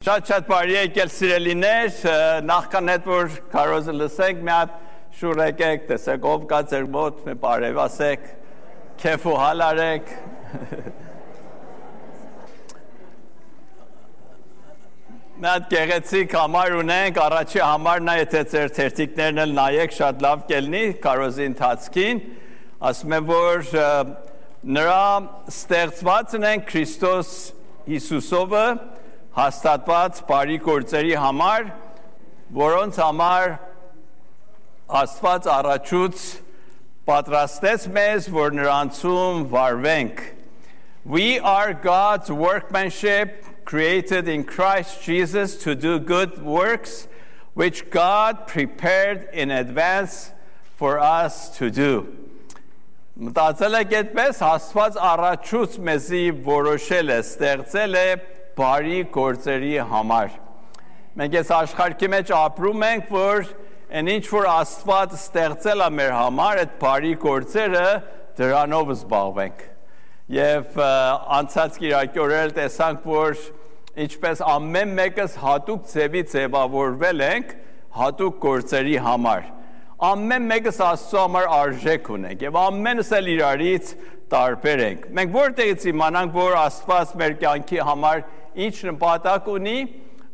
Շատ բարի եկել սիրելիներ, նախքան հետ որ քարոզը լսենք, մի հատ շուռ եկեք, տեսեք ով կա ձեր մոտ, մի բարև ասեք, քեֆ ու հալ արեք։ Մի հատ գեղեցիկ համար ունենք, առաջի համարն է, եթե ձեր թերթիկներն էլ նայեք, շատ լավ կելնի քարոզի ընթացքին, ասում եմ, որ նրա ստեղծվածն են Քրիստոս Հիսուսովը, հաստատված բարի գործերի համար, որոնց համար Աստված առաջուց պատրաստեց մեզ, որ նրանցում վարվենք։ We are God's workmanship, created in Christ Jesus to do good works, which God prepared in advance for us to do. Մտածել եք այդպես, Աստված առաջուց մեզի որոշել է, ստեղծել է բարի գործերի համար։ Մենք այս աշխարհի մեջ ապրում ենք, որ այն ինչ որ Աստված ստեղծել է մեր համար, այդ բարի գործերը դրանով զբաղվենք։ Եվ անցած կիրակի օրեր տեսանք, որ ինչպես ամեն մեկս հատուկ ձևի ձևավորվել ենք հատուկ գործերի համար։ Ամեն մեկս Աստծո համար արժեք ունենք եւ ամենս էլ իրարից տարբեր ենք։ Մենք որտեղից իմանանք, որ Աստված մեր կյանքի համար ինչ նպատակ ունի,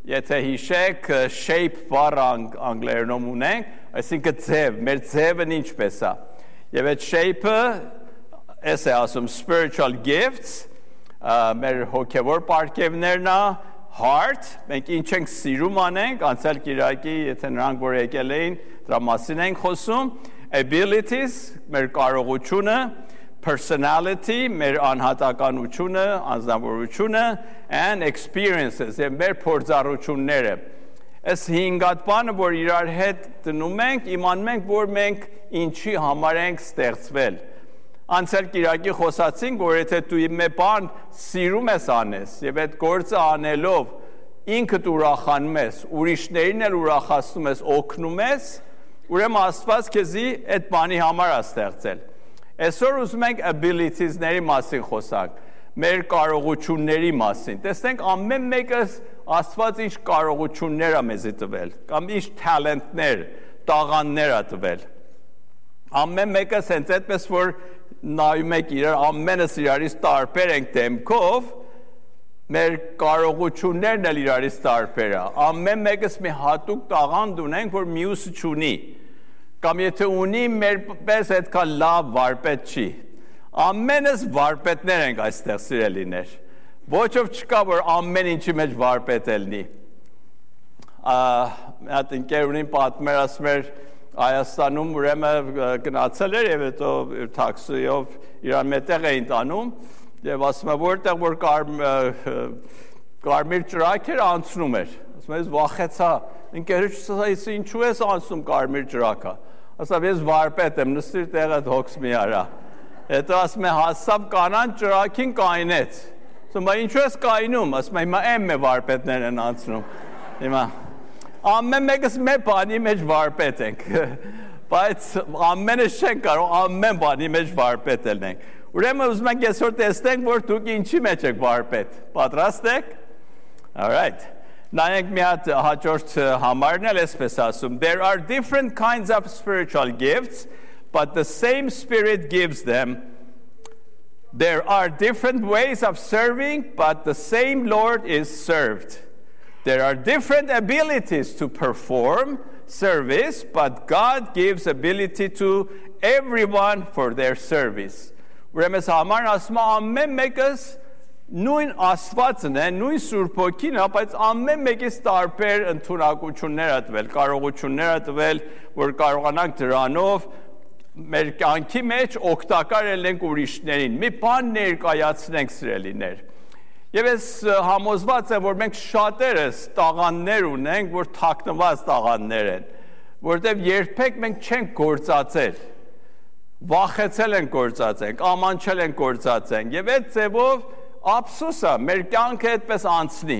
եթե հիշեք, shape բառը անգլերենում ունենք, այսինքն ձև, մեր ձևն ինչպես է։ Եվ այդ shape-ը, էս է ասում spiritual gifts, մեր հոգևոր պարգևներն է, heart, մենք ինչ ենք սիրում անենք, անցյալ կիրակի, եթե նրանք որ եկել էին, դրա մասին ենք խոսում, abilities, մեր կարողությունը, personality, մեր անհատականությունը, անձնավորությունը, and experiences, եւ մեր փորձառությունները։ Այս հինգատ բանը, որ իրար հետ դնում ենք, իմանում ենք, որ մենք ինչի համար ենք ստեղծվել։ Անցյալ կիրակի խոսացինք, որ եթե դու մի բան սիրում ես անես, եւ այդ գործը անելով ինքդ ուրախանում ես, ուրիշներին էլ ուրախացնում ես, օգնում ես, ուրեմն Աստված քեզի այդ բանի համար է ստեղծել։ Այսօր ուզում ենք abilities-ների մասին խոսանք, մեր կարողությունների մասին։ Տեսնենք ամեն մեկս Աստված ինչ կարողություններ է մեզի տվել, կամ ինչ talent-ներ, տաղանդներ է տվել։ Ամեն մեկս հենց այդպես որ նայում եք իրար, ամենս իրարից տարբեր ենք դեմքով, մեր կարողություններն էլ իրարից տարբեր է։ Ամեն մեկս մի հատուկ տաղանդ ունենք, որ մյուսը չունի։ Կամ եթե ունի, մեր պես այդքան լավ վարպետ չի։ Ամենս վարպետներ ենք այստեղ սիրելիներ։ Ոչով չկա, որ ամեն ինչի մեջ վարպետ ելնի։ Այդ ընկերունին պատմեր ասում էր Հայաստանում ուրեմն գնացել էր եւ հետո տաքսիով իրան մետեղ էին տանում եւ ասում է որտեղ որ կարմիր ճրակ էր անցնում էր ասում է ես վախեցա ընկերուց ասա ինչու ես անցնում կարմիր ճրակը ասա ես վարպետ եմ նստիր տեղը հոգս մի արա հետո ասում է հասավ կանան ճրակին կայնեց ասում է ինչու ես կայնում ասում է հիմա եմ վարպետներն են անցնում հիմա ամեն մեկս մեր բանի մեջ վարպետ ենք, բայց ամենս չենք կարող ամեն բանի մեջ վարպետ ելնենք։ Ուրեմն ուզում ենք այսօր տեսնենք, որ դուք ինչի մեջ եք վարպետ։ Պատրաստ եք? All right. Նայենք մի հատ հաջորդ համարն էլ այսպես ասում. There are different kinds of spiritual gifts, but the same Spirit gives them. There are different ways of serving, but the same Lord is served. There are different abilities to perform service, but God gives ability to everyone for their service. Ուրեմն համարն ասում է ամեն մեկս նույն Աստվածն է, նույն Սուրբ Հոգին է, բայց ամեն մեկից տարբեր ընդունակություններ է տվել, կարողություններ է տվել, որ կարողանանք դրանով մեր կյանքի մեջ օգտակար ելնենք ուրիշներին։ Մի բան ներկայացնենք սիրելիներ։ Եվ ես համոզված եմ, որ մենք շատերս տաղանդներ ունենք, որ թաքնված տաղանդներ են, որտեղ երբեք մենք չենք գործածել, վախեցել ենք գործածենք, ամանչել ենք գործածենք, եւ այդ ձևով ափսոս է, մեր կյանքը այդպես անցնի։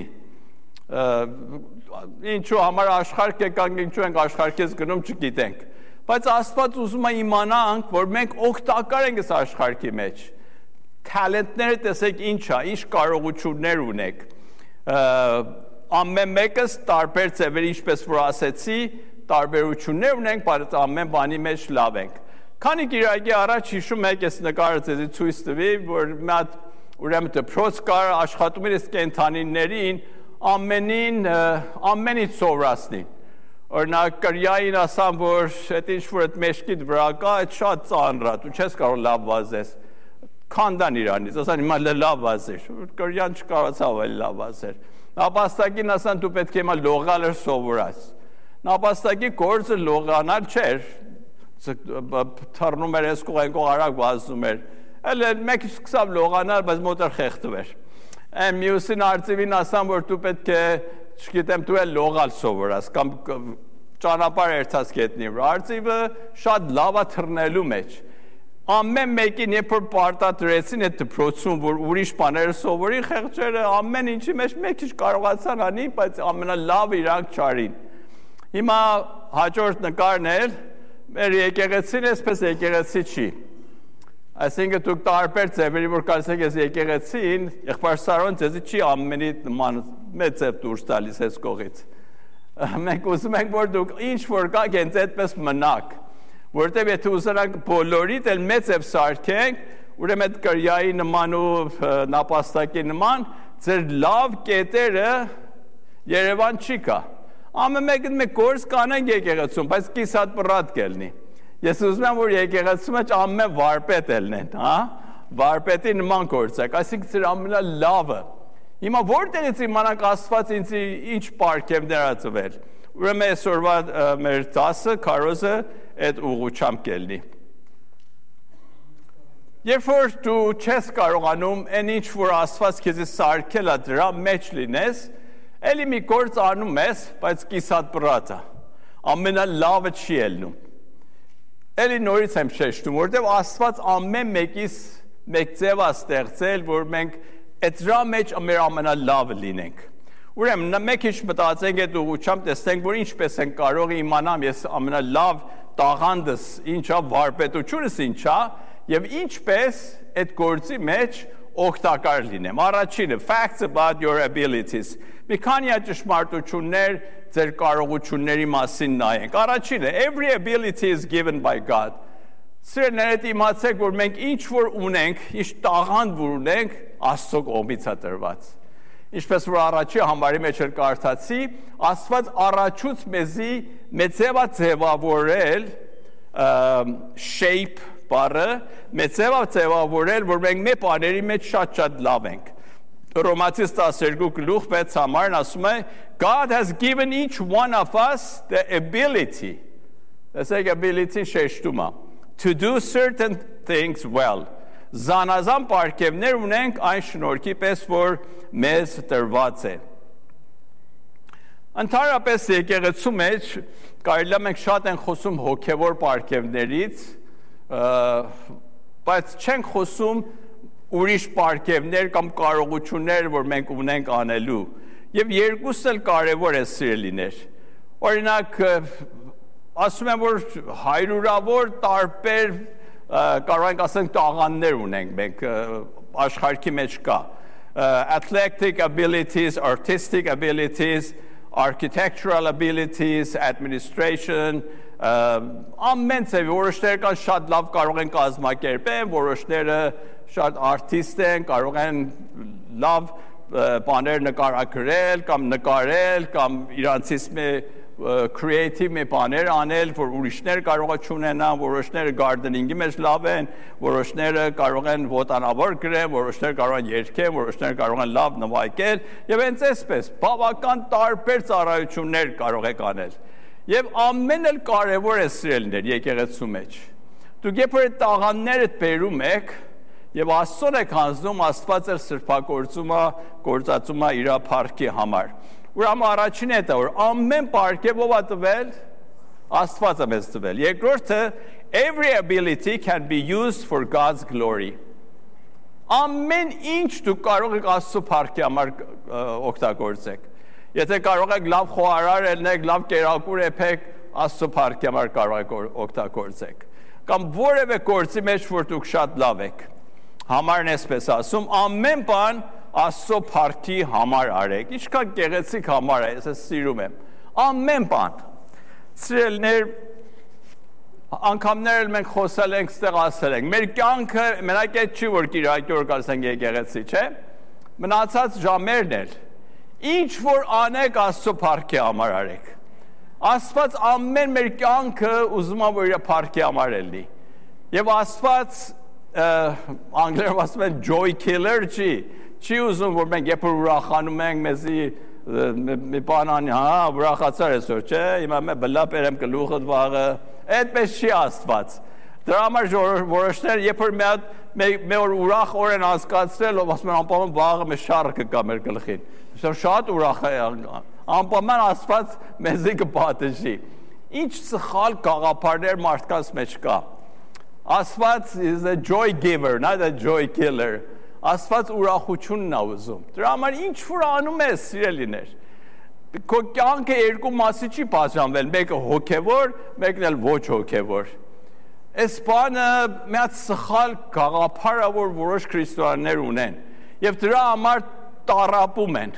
Ինչու համար աշխարհ եկանք, ինչու ենք աշխարհից գնում, չգիտենք։ Բայց Աստված ուզում է իմանանք, որ մենք օգտակար ենք այս աշխարհի մեջ։ Talent-ները տեսեք ինչ է, ինչ կարողություններ ունեք։ ամեն մեկս տարբեր ձևերի, ինչպես որ ասեցի, տարբերություններ ունենք, բայց ամեն բանի մեջ լավ ենք։ Քանի գիրակի առաջ հիշում եք, ես նկարը ձեզի ցույց տվի, որ մի հատ ուրեմն դպրոց կար, աշխատում էր կենդանիներին ամենից սովորացնի։ Օրինակ կրյային ասամ, որ այդ ինչ-որ այդ մեջքիդ վրա կա, այդ շատ ծանր է, դու չես կարող լավ վազես։ Քանդան իրանից, ասան հիմա լավ վազեր, կրյան չկարողացավ այլ լավ վազեր։ Նապաստակին ասան դու պետք է հիմա լողալ սովորած։ Նապաստակի գործը լողանալ չէր, թռնում էր այս կողենքով արագ վազում էր։ Էլ մեկ սկսավ լողանալ, բայց մոտը խեղդվեր։ Մյուսին արծիվին ասան, որ դու պետք է, չգիտեմ, դու էլ լողալ սովորած, կամ ճանապարհ երթաց գետնի վրա։ Արծիվը շատ լավ է թռնելու մեջ։ Ամեն մեկին երբ որ պարտադրեցին այդ դպրոցում, որ ուրիշ բաներ սովորի, խեղճերը ամեն ինչի մեջ մեկ քիչ կարողացան անի, բայց ամենալավը իրանք չարին։ Հիմա հաջորդ նկարն էլ մեր եկեղեցին էսպես եկեղեցի չի։ Այսինքն դուք տարբեր ձևերի որ կարծեք ես եկեղեցին, եղբայր Սարոն ձեզի չի ամենի նման մեծ ձև դուրս տալիս այս կողից։ Մենք ուզում ենք որ դուք ինչ որ կաք հենց այդպես մնաք, որտեղ եթե ուզենանք բոլորիդ էլ մեծ ձև սարքենք, ուրեմն այդ կրյայի նման ու նապաստակի նման ձեր լավ կետերը Երևան չի կա։ Ամեն մեկն մեկ գործ կանենք եկեղեցում, բայց կիսատ պռատ կելնի։ Ես ուզում եմ, որ եկեղեցու մեջ ամեն վարպետ ելնեն, վարպետի նման գործեք, այսինքն ձեր ամենալավը։ Հիմա որտեղից իմանանք Աստված ինձ ինչ պարգևներ ա տվել։ Ուրեմն այսօրվա մեր դասը, քարոզը այդ ուղղությամբ կելնի։ Երբ որ դու չես կարողանում այն ինչ որ Աստված քեզ սարքել ա դրա մեջ լինես, էլի մի գործ անում ես, բայց կիսատ պռատ ա։ Ամենալավը չի ելնում։ Էլի նորից եմ շեշտում, որտեղ Աստված ամեն մեկիս մեկ ձև է ստեղծել, որ մենք այդ դրա մեջ մեր ամենալավը լինենք։ Ուրեմն մեկ ինչ մտածենք այդ ուղղությամբ, տեսնենք, որ ինչպես են կարող իմանամ ես ամենալավ տաղանդս ինչա, վարպետությունս ինչա, եւ ինչպես այդ գործի մեջ օգտակար լինեմ։ Առաջինը facts about your abilities։ Մի քանի ճշմարտություններ ձեր կարողությունների մասին նայենք։ Առաջինը every ability is given by God։ Սիրելիներ, իմացեք, որ մենք ինչ որ ունենք, ինչ տաղանդ որ ունենք, Աստծո կողմից է տրված։ Ինչպես որ առաջի համարի մեջ էլ կարդացի, Աստված առաջուց մեզի մեծեվա ձևավորել shape բառը, մեծեվա ձևավորել, որ մենք մեր բաների մեջ շատ լավ ենք։ Ռոմացիս 12:6 համարն ասում է God has given each one of us the ability, տեսեք ability շեշտում է, to do certain things well. Զանազան պարգևներ ունենք այն շնորհքի պես, որ մեզ տրված է։ Ընդհանրապես եկեղեցու մեջ կարելի է մենք շատ ենք խոսում հոգևոր պարգևներից, բայց չենք խոսում ուրիշ պարգևներ կամ կարողություններ, որ մենք ունենք անելու։ Եվ երկուսն էլ կարևոր է սիրելիներ։ Օրինակ, ասում եմ, որ հարյուրավոր տարբեր կարող ենք ասենք տաղանդներ ունենք մենք աշխարհի մեջ կա athletic abilities, artistic abilities, architectural abilities, administration, ամեն ծավալ որոշները կան շատ լավ կարող են կազմակերպել, որոշները շատ արտիստ են, կարող են լավ բաներ նկարագրել կամ նկարել կամ իրանցից creative մի բաներ անել, որ ուրիշներ կարող է չունենան, որոշները gardening-ի մեջ լավ են, որոշները կարող են ոտանավոր գրեն, որոշները կարող են երգել, որոշները կարող են լավ նվագել, եւ հենց այսպես բավական տարբեր ծառայություններ կարող եք անել։ Եվ ամեն էլ կարևոր է սիրելիներ եկեղեցու մեջ։ Դուք երբ որ այդ տաղանդները բերում եք եւ Աստծուն եք հանձնում, Աստված էլ գործածում է իր փառքի համար։ Ուրեմն առաջինը է դա, որ ամեն պարգև ով է տվել, Աստված է մեզ տվել։ Երկրորդը, every ability can be used for God's glory։ Ամեն ինչ դուք կարող եք Աստծո փառքի համար օգտագործեք։ Եթե կարող եք լավ խոհարար ելնեք, լավ կերակուր եպեք, Աստծո փառքի համար կարող եք օգտագործեք։ Կամ որևէ գործի մեջ, որ դուք շատ լավ եք։ Համարն էսպես ասում, ամեն բան Աստծո փառքի համար արեք։ Ինչքան գեղեցիկ համար է, ես սիրում եմ։ Ամեն բան։ Սիրելիներ, անգամներ մենք խոսել ենք, ստեղ ասել ենք։ Մեր կյանքը մենակ այդ չի, որ կիրակի օր ասենք եկեղեցի, չէ՞։ Մնացած ժամերն էլ ինչ որ անեք Աստծո փառքի համար արեք։ Աստված ամեն մեր կյանքը ուզում է որ իր փառքի համար լինի։ Եվ Աստված անգլերեն ասում են joy killer չի ուզում որ մենք երբ որ ուրախանում ենք մեզի մի բան անի, ուրախացար այսօր, չէ՞, հիմա մե բլա բերեմ գլուխդ վաղը, այդպես չի Աստված։ Դրա համար որոշներ երբ որ մի օր ուրախ օր են անցկացրել, ով ասում են անպայման վաղը մի շառը կգա մեր գլխին։ Շատ ուրախ է, անպայման Աստված մեզի կպատժի։ Ինչ սխալ գաղափարներ մարդկանց մեջ կա։ Աստված is a joy giver, not a joy killer։ Աստված ուրախությունն է ուզում։ Դրա համար ինչ որ անում ես, սիրելիներ։ Քո կյանքը երկու մասի չի բաժանվել, մեկը հոգևոր, մեկն էլ ոչ հոգևոր։ Այս բանը մի հատ սխալ գաղափար է, որ որոշ քրիստոնյաներ ունեն, եւ դրա համար տառապում են։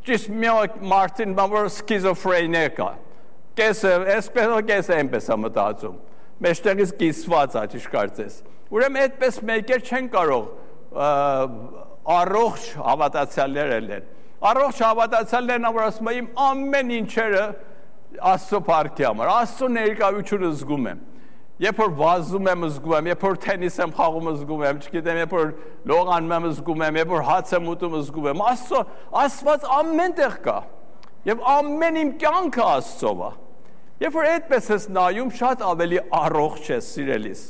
Ճիշտ մի մարդին, որ սկիզոֆրենիա կա։ Կեսը, այսպես այնպես է մտածում։ Մեջտեղից կիսված է, ճիշտ կարծես։ Ուրեմն այդպես մեկեր չեն կարող առողջ հավատացյալներ են։ Առողջ հավատացյալներն որ ասում են իմ ամեն ինչերը Աստծո փառքի համար, Աստծո ներկայությունը զգում եմ։ Երբ որ վազում եմ զգում եմ, երբ որ թենիս եմ խաղում զգում եմ, չգիտեմ, երբ որ լողանում եմ զգում եմ, երբ որ հաց եմ ուտում զգում եմ, Աստված ամենտեղ կա։ Եվ ամեն իմ կյանքը Աստծով է։ Երբ որ այդպես ես նայում, շատ ավելի առողջ ես, սիրելիս։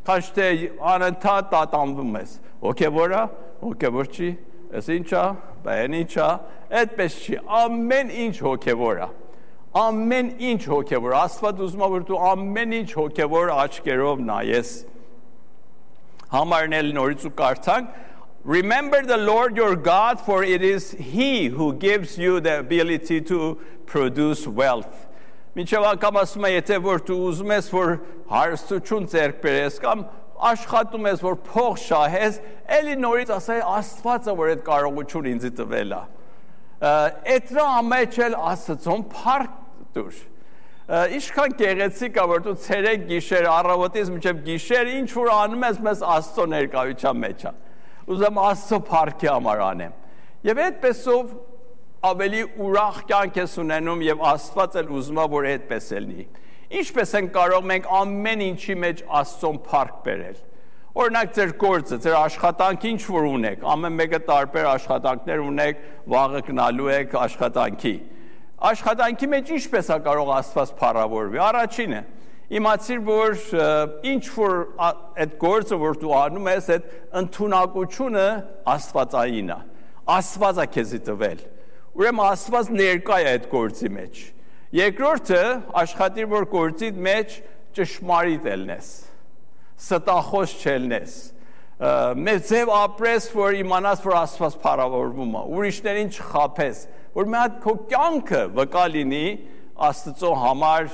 Քան թե անընդհատ տատանվում ես։ Հոգևոր է, հոգևոր չի, այս ինչ է, բան ինչ է, այդպես չի, ամեն ինչ հոգևոր է։ Ամեն ինչ հոգևոր, Աստված ուզում է որ դու ամեն ինչ հոգևոր աչքերով նայես։ Համարն էլ նորից ու կարդանք, Remember the Lord your God, for it is He who gives you the ability to produce wealth. Մինչև անգամ ասում է, եթե որ դու ուզում ես, որ հարստություն ձեռք բերես, կամ աշխատում ես, որ փող շահես, էլի նորից ասա, Աստված է, որ այդ կարողություն ինձ տվել է։ Էդրա ամեջ էլ Աստծուն փառք տուր։ Ինչքան գեղեցիկ է, որ դու ցերեկ գիշեր առավոտից մինչև գիշեր ինչ որ անում ես, մեզ Աստծո ներկայության մեջ է։ Ուզում Աստծո փառքի համար անեմ։ Եվ այդպեսով ավելի ուրախ կյանք ես ունենում եւ Աստված էլ ուզում է որ այդպես լինի։ Ինչպես են կարող մենք ամեն ինչի մեջ Աստծուն փառք բերել։ Օրինակ ձեր գործը, ձեր աշխատանքը ինչ որ ունեք, ամեն մեկը տարբեր աշխատանքներ ունեք, վաղը գնալու եք աշխատանքի։ Աշխատանքի մեջ ինչպես է կարող Աստված փառավորվի։ Առաջինը իմացիր որ ինչ որ այդ գործը որ դու անում ես, այդ ընդունակությունը Աստվածային է։ Աստվածը քեզի տվել։ Ուրեմն Աստված ներկա է այդ գործի մեջ։ Երկրորդը աշխատիր որ գործի մեջ ճշմարիտ ելնես, ստախոս չելնես, մեծ ձև ապրես որ իմանաս որ Աստված փառավորվում է, ուրիշներին չխաբես, որ մի հատ քո կյանքը վկա լինի Աստծո համար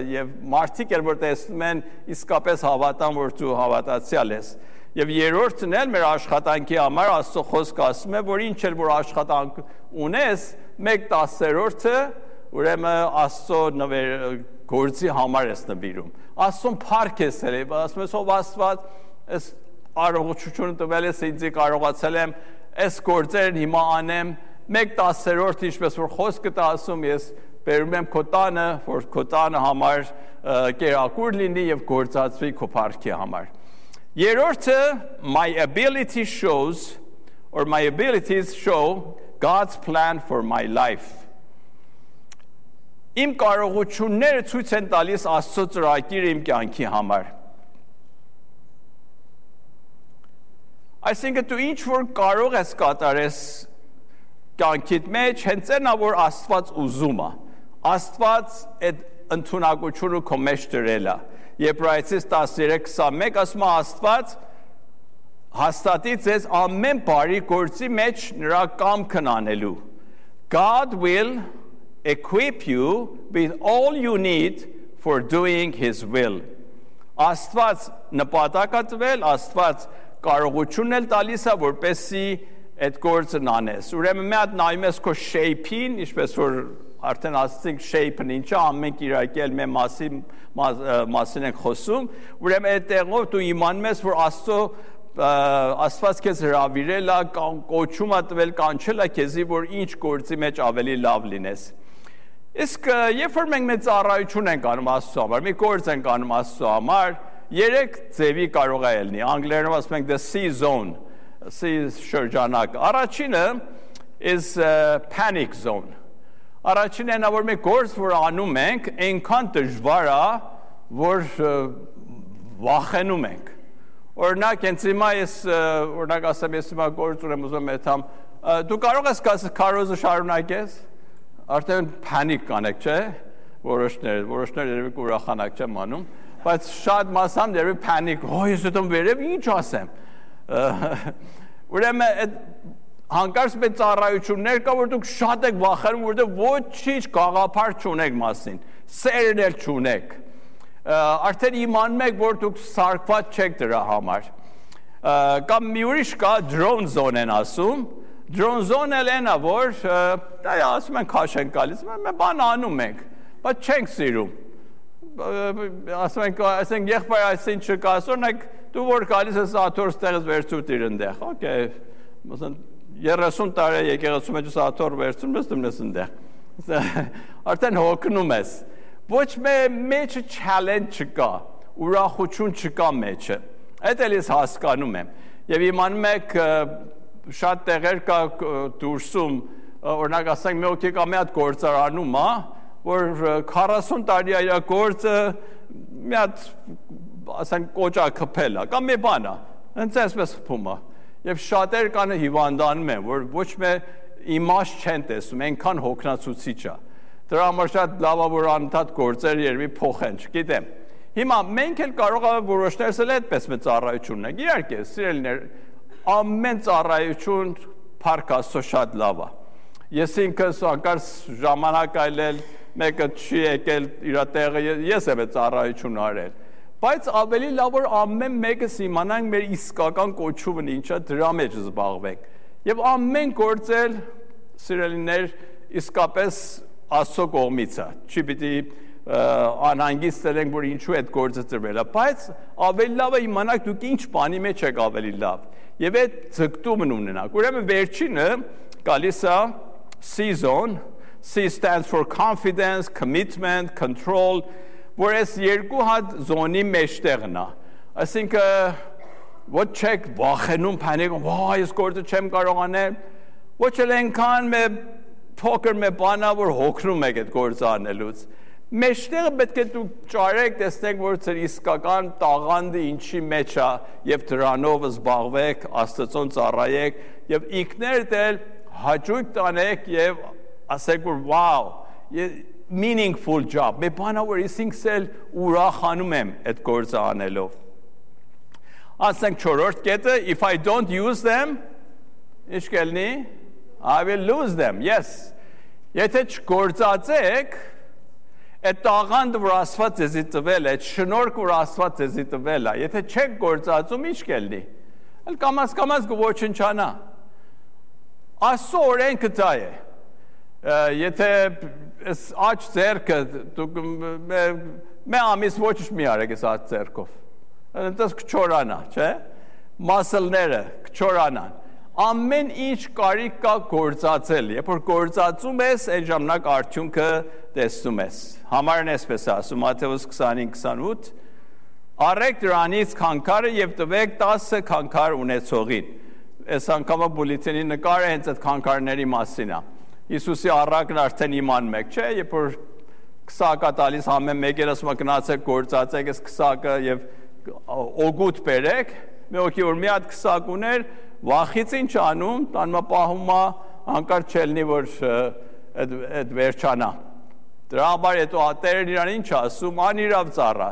եւ մարդիկ էլ որ տեսնում են իսկապես հավատան որ դու հավատացյալ ես։ Եվ երրորդն էլ մեր աշխատանքի համար Աստծո խոսքը ասում է, որ ինչ էլ որ աշխատանք ունես, 1/10-ը ուրեմն Աստծո գործի համար ես նվիրում։ Աստծուն փառք ես ել, ասում ես ով Աստված, այս առողջությունը տվել ես ինձ կարողացել եմ այս գործերն հիմա անեմ, 1/10 ինչպես որ խոսքը դա ասում ես բերում եմ քո տանը, որ քո տանը համար կերակուր լինի եւ գործածվի քո փառքի համար։ Երրորդը my abilities show God's plan for my life. Իմ կարողությունները ցույց են տալիս Աստծո ծրագիրը իմ կյանքի համար։ Այսինքն դու ինչ որ կարող ես կատարես կյանքիդ մեջ, հենց այնա որ Աստված ուզում է։ Աստված այդ ընդունակությունը քո մեջ դրել է։ Եբրայեցիս 13:21 ասում է Աստված հաստատի ձեզ ամեն բարի գործի մեջ նրա կամքն անելու։ God will equip you with all you need for doing his will. Աստված նպատակ է տվել, Աստված կարողությունն էլ տալիս է, որպեսզի այդ գործն անես։ Ուրեմն մի հատ նայում ես քո shape-ին, ինչպես որ արդեն ասացինք shape-ն ինչ է, ամեն կիրակել մեր մասին ենք խոսում, ուրեմն այդ տեղով դու իմանում ես, որ Աստված քեզ հրավիրել է, կոչում է տվել, կանչել է քեզի, որ ինչ գործի մեջ ավելի լավ լինես։ Իսկ երբ որ մենք մեծ ծառայություն ենք անում Աստծո համար, մի գործ ենք անում Աստծո համար, 3 ձևի կարող է ելնի։ Անգլերենով ասում ենք the C zone, C շրջանակ։ Առաջինը is panic zone։ Առաջինն է, որ մի գործ, որ անում ենք, այնքան դժվար է, որ վախենում ենք։ Օրինակ, հենց հիմա ես օրինակ ասեմ, ես հիմա գործ ունեմ ուզում եմ դու կարող ես քարոզը շարունակես, արդեն փանիկ կանեք, չէ՞, որոշներ երևի կուրախանակ չեմ անում, բայց շատ մասամբ երևի փանիկ, ես ուտում վերև ինչ ասեմ։ Ուրեմն այդ հանկարծ մեծ ծառայություններ կա, որ դուք շատ եք վախենում, որտեղ ոչինչ գաղափար չունեք մասին, սերն էլ չունեք։ Արդեն իմանում եք, որ դուք սարկված չեք դրա համար։ Կամ մի ուրիշ կա drone zone են ասում, drone zone էլ են, որ ասում են քաշ են գալիս, մենք բան անում ենք, բայց չենք սիրում։ Ասում ենք, այսինքն եղբայր այսին չկա, ասորնակ դու որ գալիս ես աթոռ ստեղից վերցուտ իր ընդեղ, օքեյ, məsələn 30 տարի եկեղեցու մեջ աթոռ վերցում ես դու ես ընդեղ։ Արդեն հոգնում ես։ Ոչ մեջը challenge չկա, ուրախություն չկա մեջը։ Այդ էլ ես հասկանում եմ։ Եվ իմանում եք շատ տեղեր կա դուրսում, օրինակ ասենք մի օքի կա մի հատ գործարանում, որ 40 տարի է իր գործը մի հատ ասենք կոճա քփել է, կամ մի բան է, հենց այսպես խփում է։ Եվ շատեր կան հիվանդանում են, որ ոչ մի իմաստ չեն տեսնում, այնքան հոգնածուցիչ է։ Դրա համար շատ լավ է, որ անընդհատ գործեր երևի փոխեն, չգիտեմ։ Հիմա մենք էլ կարող ենք որոշներս էլ այդպես մեծ ծառայություն ունենք։ Իհարկե, սիրելիներ, ամեն ծառայություն փառք Աստծո շատ լավ է։ Ես ինքս անկարծ ժամանակ այլել, մեկը չի եկել իր տեղը, ես եմ այդ ծառայություն արել։ Բայց ավելի լավ որ ամեն մեկս իմանանք մեր իսկական կոչումն ինչա, դրա մեջ զբաղվենք։ Եւ ամեն գործել, սիրելիներ, իսկապես Աստծո կողմից է, չի պիտի անհանգիստ լինենք, որ ինչու այդ գործը ծրվել է, բայց ավելի լավ է իմանաք դուք ինչ բանի մեջ եք ավելի լավ, և այդ ձգտումն ունենաք, ուրեմն վերջինը գալիս է C zone, C stands for confidence, commitment, control, որ այս երկու հատ զոնի մեջտեղն է, այսինքն ոչ չեք վախենում, փանիկում, ես գործը չեմ կարող անել, ոչ էլ այնքան փոքր մի բան է, որ հոգնում եք այդ գործը անելուց։ Մեջտեղը պետք է դուք ճարեք, տեսնեք, որ ձեր իսկական տաղանդը ինչի մեջ է, եւ դրանով զբաղվեք, Աստծուն ծառայեք, եւ ինքներդ էլ հաճույք տանեք եւ ասեք, որ wow, meaningful job, մի բան է, որ ինքս էլ ուրախանում եմ այդ գործը անելով։ Ասենք 4-րդ կետը, if I don't use them, ինչ կլինի? I will lose them, yes. Եթե չգործածեք, այդ տաղանդը, որ Աստված ձեզի տվել է, այդ շնորհքը, որ Աստված ձեզի տվել է, եթե չեք գործածում, ինչ կլինի։ Էլ կամաց կոչնչանա։ Աստծո օրենքը դա է։ Եթե այս աջ ձեռքը դուք մի ամիս ոչ մի արեք այս աջ ձեռքով։ Այնտես կչորանա, չէ՞։ Մասլները կչորանան։ Ամեն ինչ կարիք կա գործածել, երբ որ գործածում ես, այն ժամանակ արդյունքը տեսնում ես։ Համարն այսպես ասում, Մատթեոս 25-28, առեք դրանից քանքարը եւ տվեք 10 քանքար ունեցողին։ Այս անգամը բուլետինի նկարը հենց այդ քանքարների մասին է։ Հիսուսի առակն արդեն իմանում եք, չէ՞, երբ որ քսակա տալիս ամեն մեկը ասում է գնացեք գործածեք այս քսակը եւ օգուտ բերեք, մի օքի որ մի հատ քսակ ուներ, վախից ինչ անում, տանմա պահում է, հանկարծ չելնի, որ այդ վերջանա։ Դրա համար հետո ատերն իրան ինչ ասում, անիրավ ծառա,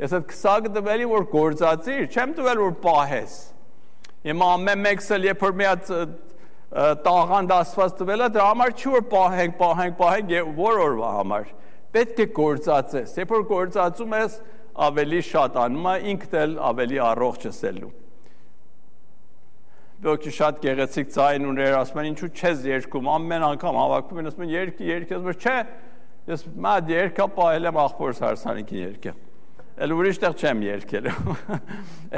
ես այդ քսակը տվելի, որ գործածիր, չեմ տվել, որ պահես։ Հիմա ամեն մեկս էլ երբ որ մի հատ տաղանդ Աստված տվել է, դրա համար չի որ պահենք, որ օրվա համար, պետք է գործածես, երբ որ գործածում ես, ավելի շատ անում է, ինքդ էլ ավելի առողջ ես ելնում։ Ոգի շատ գեղեցիկ ձայն ուներ, ասում են ինչու չես երգում, ամեն անգամ հավաքում են, ասում են երգի, ասում են չէ, ես մատ երգա պահել եմ աղբորս հարսանիքին երգը, էլ ուրիշ տեղ չեմ երգել,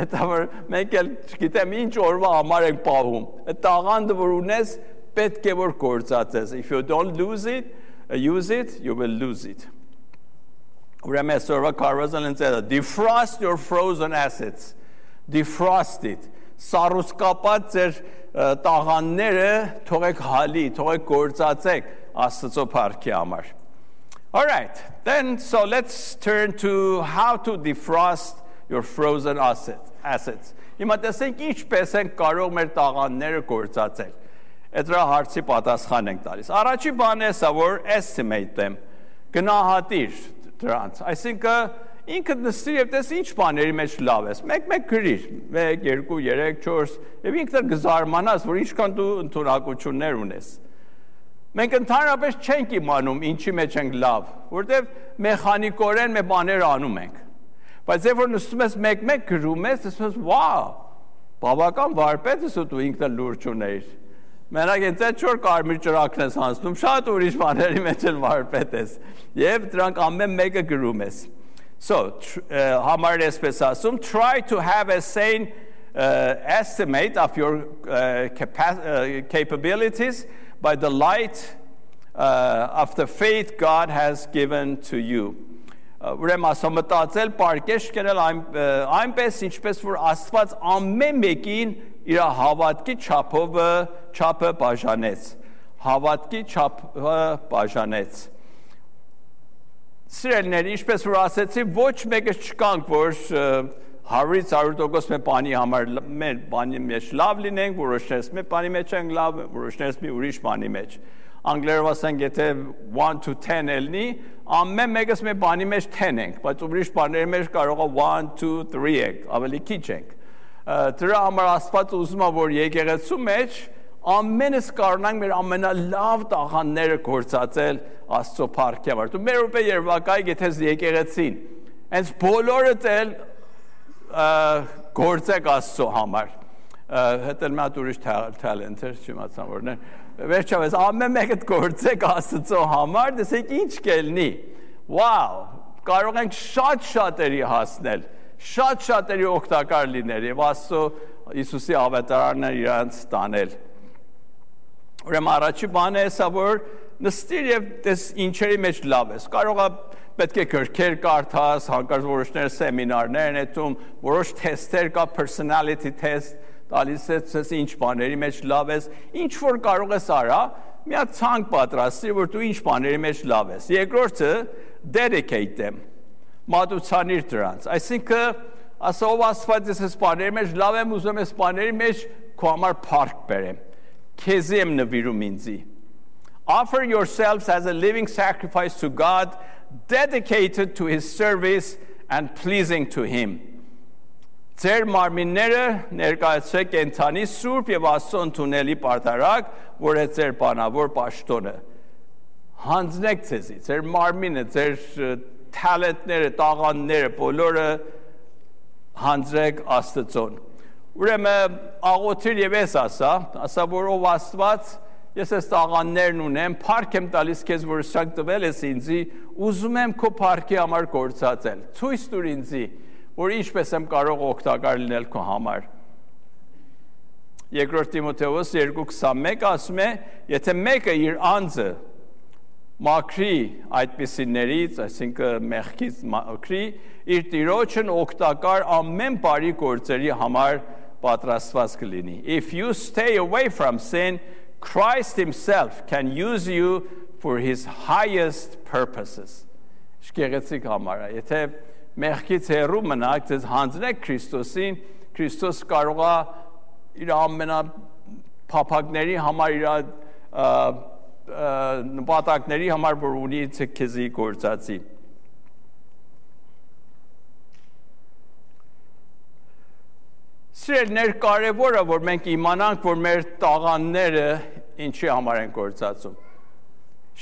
հետա որ մենք էլ չգիտեմ ինչ օրվա համար ենք պահում, այդ տաղանդը որ ունես պետք է որ գործածես, if you don't use it, you will lose it. Ուրեմն այսօրվա կարողացան են ծերը, defrost your frozen assets, defrost it, սառուսկապած ձեր տաղանները թողեք հալի, թողեք գործածեք Աստծո փառքի համար. All right, then so let's turn to how to defrost your frozen assets. Հիմա տեսենք ինչպես են կարող մեր տաղանները գործածել. Այդ հարցի պատասխան ենք տալիս. Առաջի բանը է սա, որ estimate them, գնահատիր դրանց. Այսինքն ինքդ նստիր եւ տես ինչ բաների մեջ լավ ես։ Մեկ գրիր, 1, 2, 3, 4, եւ ինքդ կզարմանաս, որ ինչքան դու ընդունակություններ ունես։ Մենք ընդհանրապես չենք իմանում ինչի մեջ ենք լավ, որտեվ մեխանիկորեն մեր բաներ անում ենք։ Բայց երբ որ նստում ես մեկ գրում ես, ասում ես, «Վաու, բավական վարպետ ես ու դու ինքդ լուրջ ունեիր»։ Մենակ այդ 4 կարմիր ճրակն ես հանձնում, շատ ուրիշ բաների մեջ էլ վարպետ ես։ Եվ դրանք ամեն մեկը գրում ես։ So, համարը այսպես ասում, try to have a sane estimate of your capabilities by the light of the faith God has given to you. Ուրեմն ասում մտածել, պարկեշ կերել այնպես, ինչպես որ Աստված ամեն մեկին իր հավատքի չափը բաժանեց։ Հավատքի չափը բաժանեց։ Սիրելիներ, ինչպես որ ասեցի, ոչ մեկը չկանք, որ 100% մեր բանի համար մեր բանի մեջ լավ լինենք, որոշներս մեր բանի մեջ ենք լավ, որոշներս մի ուրիշ բանի մեջ։ Անգլերով ասենք, եթե 1 to 10 ելնի, ամեն մեկս մեր բանի մեջ 10 ենք, բայց ուրիշ բաների մեջ կարող է 1, 2, 3 ենք, ավելի քիչ ենք։ Դրա համար Աստված ուզում է, որ եկեղեցու մեջ ամենս կարողանանք մեր ամենալավ տաղանդները գործածել Աստծո փառքի համար։ Դու մեր ուրբե երևակայ գեթես եկեղեցին, հենց բոլորը էլ գործեք Աստծո համար։ Հետո մի հատ ուրիշ talent էր, չիմացամ որն է։ Վերջապես ամեն մեկը գործեք Աստծո համար, տեսեք ինչ կելնի։ Վաու, կարող ենք շատ-շատերի հասնել, շատ-շատերի օգտակար լինել եւ Աստծո Հիսուսի ավետարանն իրանց տանել։ Ուրեմն առաջի բանը է սա, որ նստիր եւ տես ինչերի մեջ լավ ես։ Կարող է պետք է գրքեր կարդաս, հանկարծ որոշներ սեմինարներ են այդում, որոշ թեստեր կա, personality test, տալիս ես ինչ բաների մեջ լավ ես, ինչ որ կարող ես արա, մի հատ ցանկ պատրաստի, որ դու ինչ բաների մեջ լավ ես։ Երկրորդը dedicate them, մատուցանիր դրանց։ Այսինքն, ասով Աստված ես բաների մեջ լավ եմ, ուզում ես բաների մեջ քո համար փառք բերեմ։ Քեզի եմ նվիրում ինձի։ Offer yourselves as a living sacrifice to God, dedicated to His service and pleasing to Him. Ձեր մարմինները ներկայացրեք կենդանի սուրբ եւ Աստծո ընդունելի պարտարակ, որ է ձեր բանավոր պաշտոնը։ Հանձնեք ձեզի, ձեր մարմինը, ձեր talentները, տաղանդները, բոլորը հանձրեք Աստծոն։ Ուրեմն աղոթիր եւ ես ասա, որ ով Աստված, ես այս տաղանդներն ունեմ, փառք եմ տալիս քեզ, որ սրանք տվել ես ինձի, ուզում եմ քո փառքի համար գործածել։ Ցույց տուր ինձի, որ ինչպես եմ կարող օգտակար լինել քո համար։ Երկրորդ Տիմոթեոս 2:21 ասում է, եթե մեկը իր անձը մաքրի այդպիսիներից, այսինքն մեղքից մաքրի, իր Տիրոջն օգտակար ամեն բարի գործերի համար պատրաստված կլինի։ If you stay away from sin, Christ himself can use you for his highest purposes. Շկեղեցիկ համար է, եթե մեղքից հեռու մնաք, ձեզ հանձնեք Քրիստոսին, Քրիստոս կարող է իր ամենափափակների համար, իր նպատակների համար, որ ունի քեզի գործածի։ Սիրելիներ, կարևորը, որ մենք իմանանք, որ մեր տաղանդները ինչի համար են գործածում։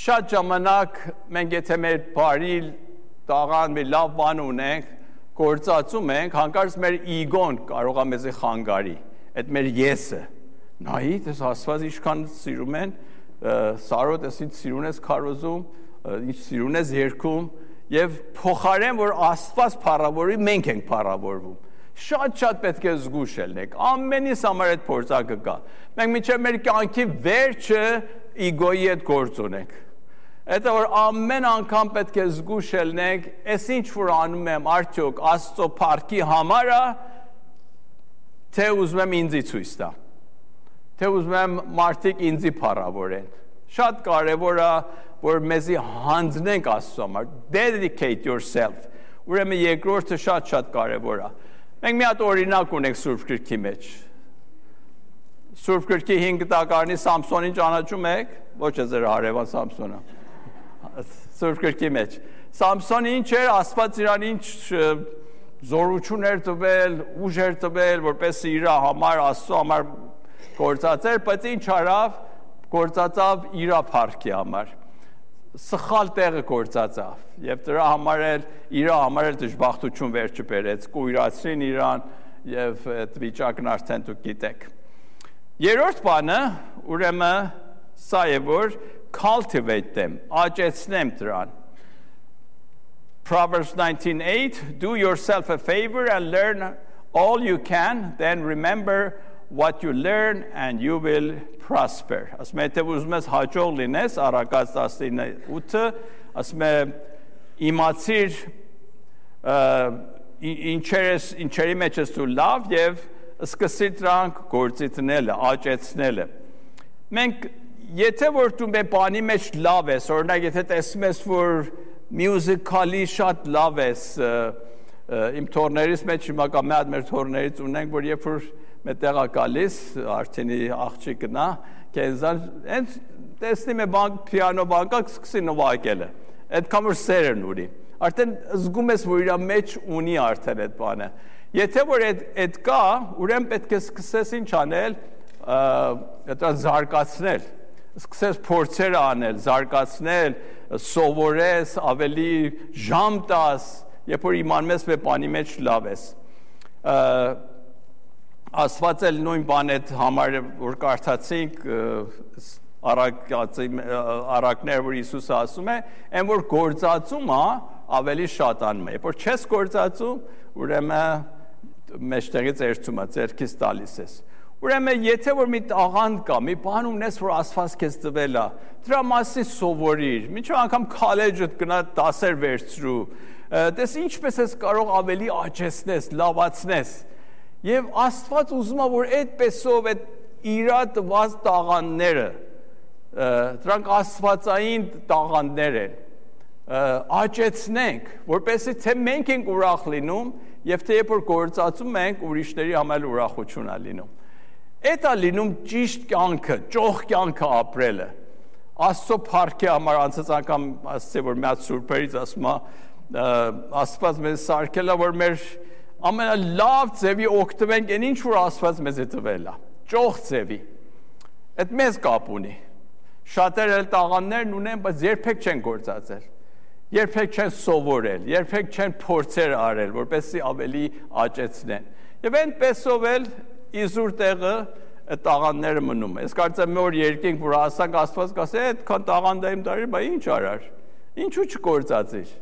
Շատ ժամանակ մենք եթե մեր բարի տաղան, մի լավ բան ունենք, գործածում ենք, հանկարծ մեր իգոն կարող է մեզի խանգարի, այդ մեր եսը, նայի, դες Աստված ինչքան սիրում են, Սարոտ ես ինչ սիրուն ես քարոզում, ինչ սիրուն ես երգում, եւ փոխարեն որ Աստված փառավորի, մենք ենք փառավորվում։ Շատ պետք է զգուշ ելնենք։ Ամենից համար այդ փորձակը կա։ Մենք մինչև մեր կյանքի վերջը իգոյի հետ գործ ունենք։ Այդ որ ամեն անգամ պետք է զգուշ ելնենք, այս ինչ որ անում եմ, արդյոք Աստծո փառքի համար է, թե ուզում եմ ինձի ցույց տա։ Թե ուզում եմ մարդիկ ինձի փառավորեն։ Շատ կարևոր է, որ մեզի հանձնենք Աստծո համար, dedicate yourself։ Ուրեմն երկրորդը շատ կարևոր է։ Մենք մի հատ օրինակ ունենք Սուրբ Գրքի մեջ։ Սուրբ Գրքի 5 տակարանի Սամսոնին ճանաչում եք, ոչ է ձեր հարևան Սամսոնը։ Սուրբ Գրքի մեջ։ Սամսոնը ինչ էր, Աստված իրան ինչ զորություն էր տվել, ուժ էր տվել, որպես իր համար, Աստծո համար գործածեր, բայց ինչ արավ, գործածավ իր փառքի համար։ Սխալ տեղը գործածավ եւ դրա համար էլ իր համար էլ դժբախտություն վերջը բերեց, կույրացրին իրան եւ այդ վիճակն արդեն դուք գիտեք։ Երրորդ բանը, ուրեմն սա է որ cultivate them, աճեցնեմ դրան։ Proverbs 19:8 Do yourself a favor and learn all you can, then remember what you learn and you will prosper. Ասում է, թե ուզում ես հաջող լինես, Առակաց 19:8, ասում է, իմացիր ինչերի մեջ ես դու լավ եւ սկսիր դրանք գործի դնելը, աճեցնելը։ Մենք եթե որ դու մեր բանի մեջ լավ ես, օրինակ եթե տեսնում ես որ musically շատ լավ ես, իմ թորներից մեջ հիմա կա մի հատ մեր թորներից ունենք, որ երբ որ մետեղա գալիս, արդենի աղջիկնա, կենզան, հենց տեսնում է պիանո բանկա, սկսի նվագելը, այդքան որ սերն ունի, արդեն զգում ես, որ իր մեջ ունի արդեն այդ բանը, եթե որ այդ կա, ուրեմն պետք է սկսես ինչ անել, զարգացնել, սկսես փորձեր անել, զարգացնել, սովորես, ավելի ժամ տաս, երբ որ իմանում ես մեր բանի մեջ լավ ես, Աստված էլ նույն բան այդ համար որ կարդացինք առակներ որ Հիսուսը ասում է, այն որ գործածում է ավելի շատանում է։ Երբ որ չես գործածում, ուրեմն մեջտեղից երցում է, ձեռքից տալիս ես։ Ուրեմն եթե որ մի տաղանդ կա, մի բան ունես, որ Աստված քեզ տվել է, դրա մասին սովորիր։ Մինչև անգամ քոլեջդ գնա դասեր վերցրու։ Տես ինչպես ես կարող ավելի աճեցնես, լավացնես։ Եվ Աստված ուզում է, որ այդպեսով այդ իրա տված տաղանդները, դրանք աստվածային տաղանդներ են, աճեցնենք, որպեսզի թե մենք ենք ուրախ լինում, եւ թե երբ որ գործածում ենք, ուրիշների համար ուրախություն է լինում։ Այդ է լինում ճիշտ կյանքը, ճոխ կյանքը ապրելը։ Աստծո փառքի համար անցած անգամ ասացի, որ մի հատ սուրբերից ասում է, Աստված մեզ սարքել է, որ մեր ամենալավ ձևի օգտվենք այն ինչ որ Աստված մեզ է տվել է, ճոխ ձևի։ Այդ մեզ կապ ունի։ Շատերը տաղանդներն ունեն, բայց երբեք չեն գործածել։ Երբեք չեն սովորել, երբեք չեն փորձեր արել, որպեսզի ավելի աճեցնեն։ Եվ այնպեսով էլ իզուր տեղը այդ տաղանդները մնում է։ Ես կարծեմ մի օր երկինք, որ ասանք Աստված կասի, այդքան տաղանդ եմ դարի, բա ինչ արար։ Ինչու չգործածիր։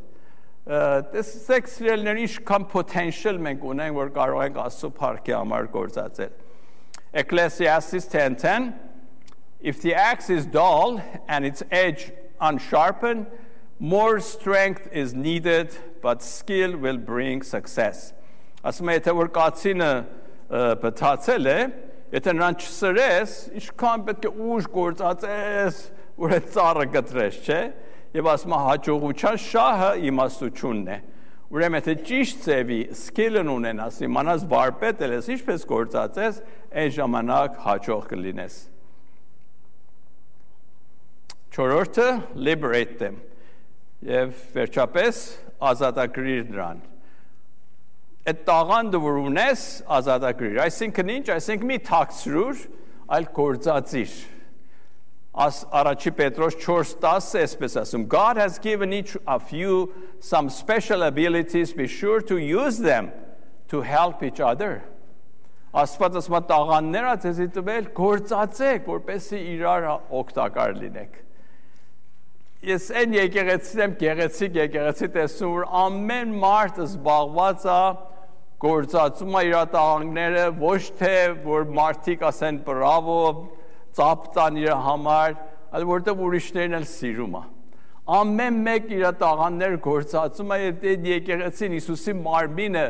Տեսեք սիրելիներ, ինչքան potential մենք ունենք, որ կարող ենք Աստծո փառքի համար գործածել։ Ecclesiastes 10:10 If the axe is dull and its edge unsharpened, more strength is needed, but skill will bring success. Ասում է, եթե որ կացինը բթացել է, եթե նրան չսրես, ինչքան պետք է ուժ գործածես, որ այդ ծառը կտրես, չէ՞։ Եվ ասում է, հաջողության շահը իմաստությունն է։ Ուրեմն եթե ճիշտ ձևի skill-ն ունենաս, իմանաս վարպետել ես, ինչպես գործածես, այն ժամանակ հաջող կլինես։ Չորրորդը liberate them։ Եվ վերջապես ազատագրիր նրան։ Այդ տաղանդը որ ունես, ազատագրիր։ Այսինքն ինչ, այսինքն մի թաքցրուր, այլ գործածիր։ Առաջի Պետրոս 4:10 այսպես ասում, God has given each of you some special abilities, be sure to use them to help each other։ Աստված ասում է տաղանները ձեզի տվել, գործածեք, որպեսզի իրար օգտակար լինեք։ Ես այն եկեղեցին եմ գեղեցիկ տեսնում, որ ամեն մարդ զբաղված է գործածում է իր տաղանները, ոչ թե որ մարդիկ ասեն բրավո, ծափ տան իր համար, այլ որտեղ ուրիշներն էլ սիրում է։ Ամեն մեկ իր տաղաններ գործածում է, այդ եկեղեցին Հիսուսի մարմինը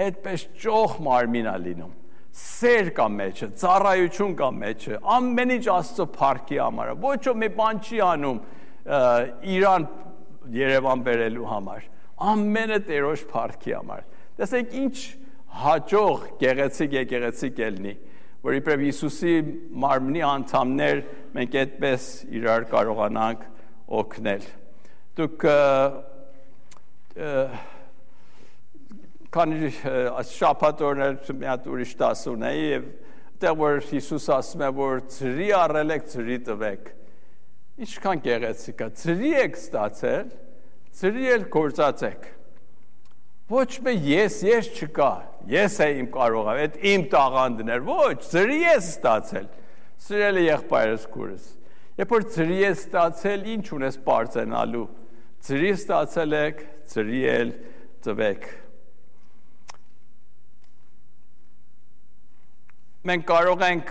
այդպես ճոխ մարմին է լինում։ Սեր կա մեջը, ծառայություն կա մեջը, ամեն ինչ Աստծո փառքի համար է։ Ոչ ոք մի բան չի անում Իրան Երևան բերելու համար։ Ամենը Տերոջ փառքի համար։ Տեսեք ինչ հաջող գեղեցիկ ելնի, որ իբրև Հիսուսի մարմնի անդամներ մենք այդպես իրար կարողանանք օգնել։ Դուք քանի շաբաթ օրներ մի հատ ուրիշ դաս ունեի եւ այդտեղ որ Հիսուս ասում է որ ծրի առել եք ծրի տվեք։ Ինչքան գեղեցիկ է, ծրի եք ստացել, ծրի էլ գործածեք։ Ոչ մի ես չկա, ես եմ կարող, այդ իմ տաղանդն էր, ոչ, ծրի ես ստացել։ Սիրել է եղբայրս քուրս։ Երբ որ ծրի ես ստացել, ինչ ունես բարձենալու։ Ծրի ստացել եք, ծրի էլ տվեք։ Մենք կարող ենք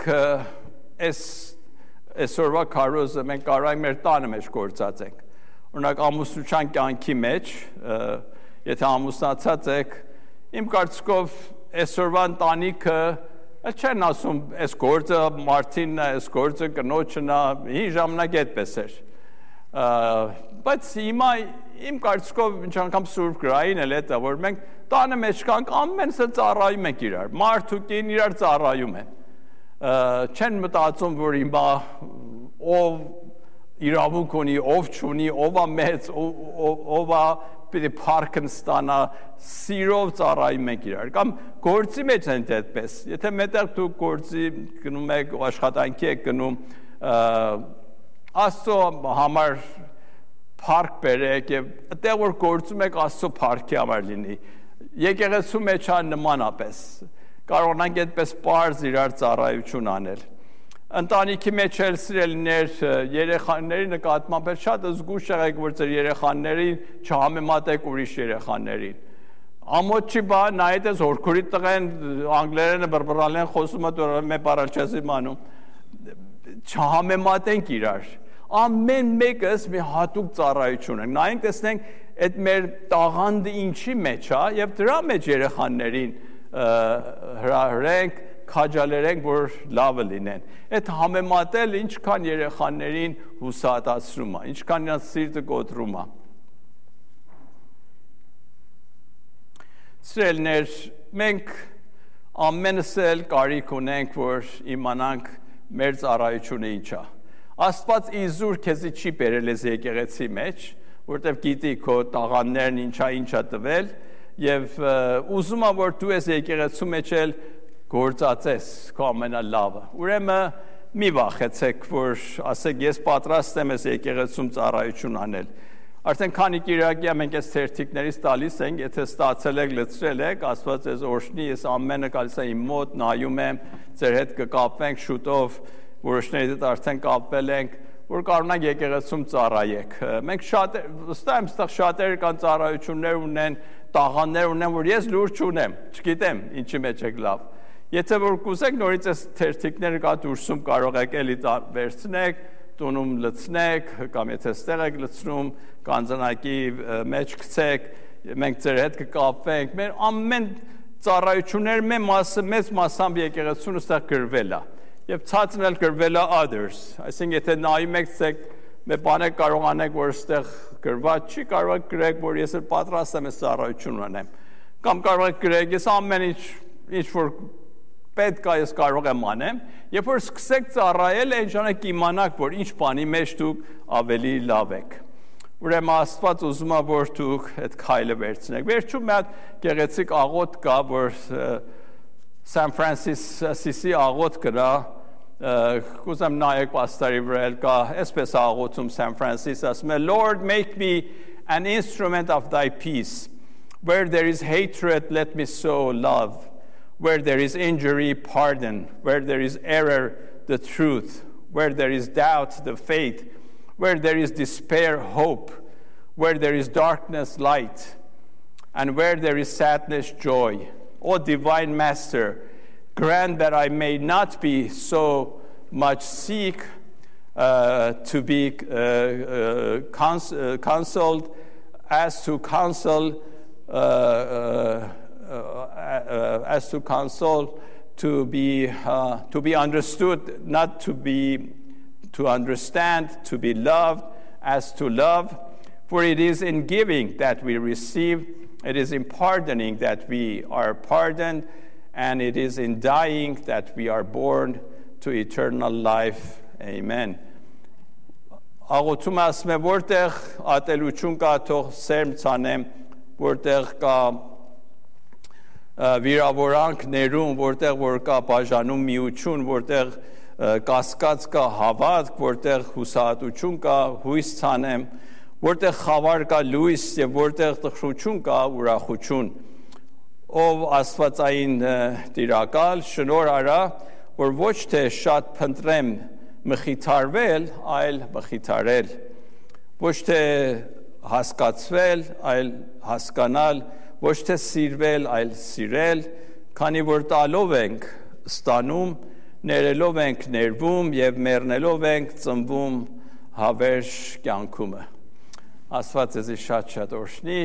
այսօրվա քարոզը մենք կարող ենք մեր տանը մեջ գործածենք։ Օրինակ ամուսնության կյանքի մեջ, եթե ամուսնացած եք, իմ կարծիքով այսօրվա ընտանիքը չեն ասում, այս գործը մարդինն է, այս գործը կնոջն է, հին ժամանակ այդպես էր։ Բայց հիմա իմ կարծիքով ինչ անգամ Սուրբ գրային էլ է, որ մենք տանը մեջ կանք ամենսը ծառայում ենք իրար, մարդ ու կին իրար ծառայում են։ Չեն մտածում, որ հիմա ով իրավունք ունի, ով չունի, ով է մեծ, ով է պիտի փառքն ստանա, սիրով ծառայում ենք իրար։ Կամ գործի մեջ են այդպես։ Եթե մետեղ դուք գործի գնում եք, աշխատանքի եք գնում, Աստծո համար փառք բերեք եւ այդտեղ որ գործում եք Աստծո փառքի համար լինի։ Եկեղեցու մեջ է նմանապես։ Կարողանանք այդպես պարզ իրար ծառայություն անել։ Ընտանիքի մեջ էլ սիրելիներ երեխաների նկատմամբ շատ զգուշ եղեք, որ ձեր երեխաներին չհամեմատեք ուրիշ երեխաներին։ Ամոթ չի բան, նայեք ես հորքուրի տղեն անգլերենը բրբռալ են խոսում, մե բառալ չես իմանում։ Չհամեմատենք իրար։ Ամեն մեկս մի հատուկ ծառայություն է։ Նայենք տեսնենք այդ մեր տաղանդը ինչի մեջ է եւ դրա մեջ երեխաներին հրահրենք, քաջալերենք, որ լավը լինեն։ Այդ համեմատել ինչքան երեխաներին հուսահատացնում է, ինչքան նրանց սիրտը կոտրում է։ Սիրելիներ, մենք ամենս էլ կարիք ունենք, որ իմանանք մեր ծառայությունը ինչ է։ Աստված իզուր քեզի չի բերել ես եկեղեցի մեջ, որտեղ գիտի քո տաղանդներն ինչա տվել եւ ուզում եմ որ դու ես եկեղեցու մեջ էլ գործածես քո ամենալավը։ Ուրեմն մի վախեցեք, որ ասեք ես պատրաստ եմ ես եկեղեցում ծառայություն անել։ Արդեն քանի կիրակի մենք այս թերթիկներից տալիս ենք, եթե ստացել եք, լցրել եք, Աստված ձեզ օրհնի, ես ամենը գալիս եմ իմ մոտ, նայում եմ, ձեր հետ կկապվենք շուտով, որոշների հետ արդեն կապվել ենք, որ կարողանանք եկեղեցում ծառայեք։ Մենք վստահ եմ, այստեղ շատերը կան ծառայություններ ունեն, տաղանդներ ունեն, որ ես լուր չունեմ, չգիտեմ ինչի մեջ եք լավ։ Եթե որ կուզեք նորից այս թերթիկները կա դուրսում կարող եք էլի վերցնեք, տունում լցնեք, կամ եթե ստեղ եք լցնում, կանձնակի մեջ գցեք, մենք ձեր հետ կկապվենք, մեր ամեն ծառայություններ մեծ մասամբ եկեղեցուն ստեղ գրվել է, և ցածն էլ գրվել է others, այսինքն եթե նայում եք ցեք, մեր բաներ կարող անեք, որ ստեղ գրված չի, կարող եք գրեք, որ ես էլ պատրաստ եմ այս ծառայություն անեմ, կամ կարող եք գրեք, ես ամեն ինչ որ պետք է ես կարող եմ անեմ, երբ որ սկսեք ծառայել, այն ժամանակ իմանաք, որ ինչ բանի մեջ դուք ավելի լավ եք։ Ուրեմն Աստված ուզում է, որ դուք այդ քայլը վերցնեք։ Վերջում մի հատ գեղեցիկ աղոթք կա, որ San Francisco աղոթք կա, կուզեմ նայեք պաստարի վրա կա, այսպես աղոթում San Francisco, ասում է Lord, make me an instrument of thy peace. Where there is hatred, let me sow love. Where there is injury, pardon. Where there is error, the truth. Where there is doubt, the faith. Where there is despair, hope. Where there is darkness, light. And where there is sadness, joy. O divine Master, grant that I may not be so much seek to be counseled as to counsel to be understood, not to understand, to be loved as to love. For it is in giving that we receive, it is in pardoning that we are pardoned, and it is in dying that we are born to eternal life. Amen. Աղոթում ասում է, որտեղ ատելություն կա, թող սերմ ցանեմ, որտեղ կա վիրավորանք ներում, որտեղ որ կա բաժանում միություն, որտեղ կասկած կա հավատք, որտեղ հուսահատություն կա, հույս ցանեմ, որտեղ խավար կա լույս եւ որտեղ տխրություն կա ուրախություն։ Ով աստվածային տիրակալ, շնորհ արա, որ ոչ թե շատ փնտրեմ մխիթարվել, այլ մխիթարել, ոչ թե հասկացվել, այլ հասկանալ, ոչ թե սիրվել, այլ սիրել, քանի որ տալով ենք ստանում, ներելով ենք ներվում եւ մեռնելով ենք ծնվում հավերժ կյանքումը։ Աստված ձեզ շատ օրհնի։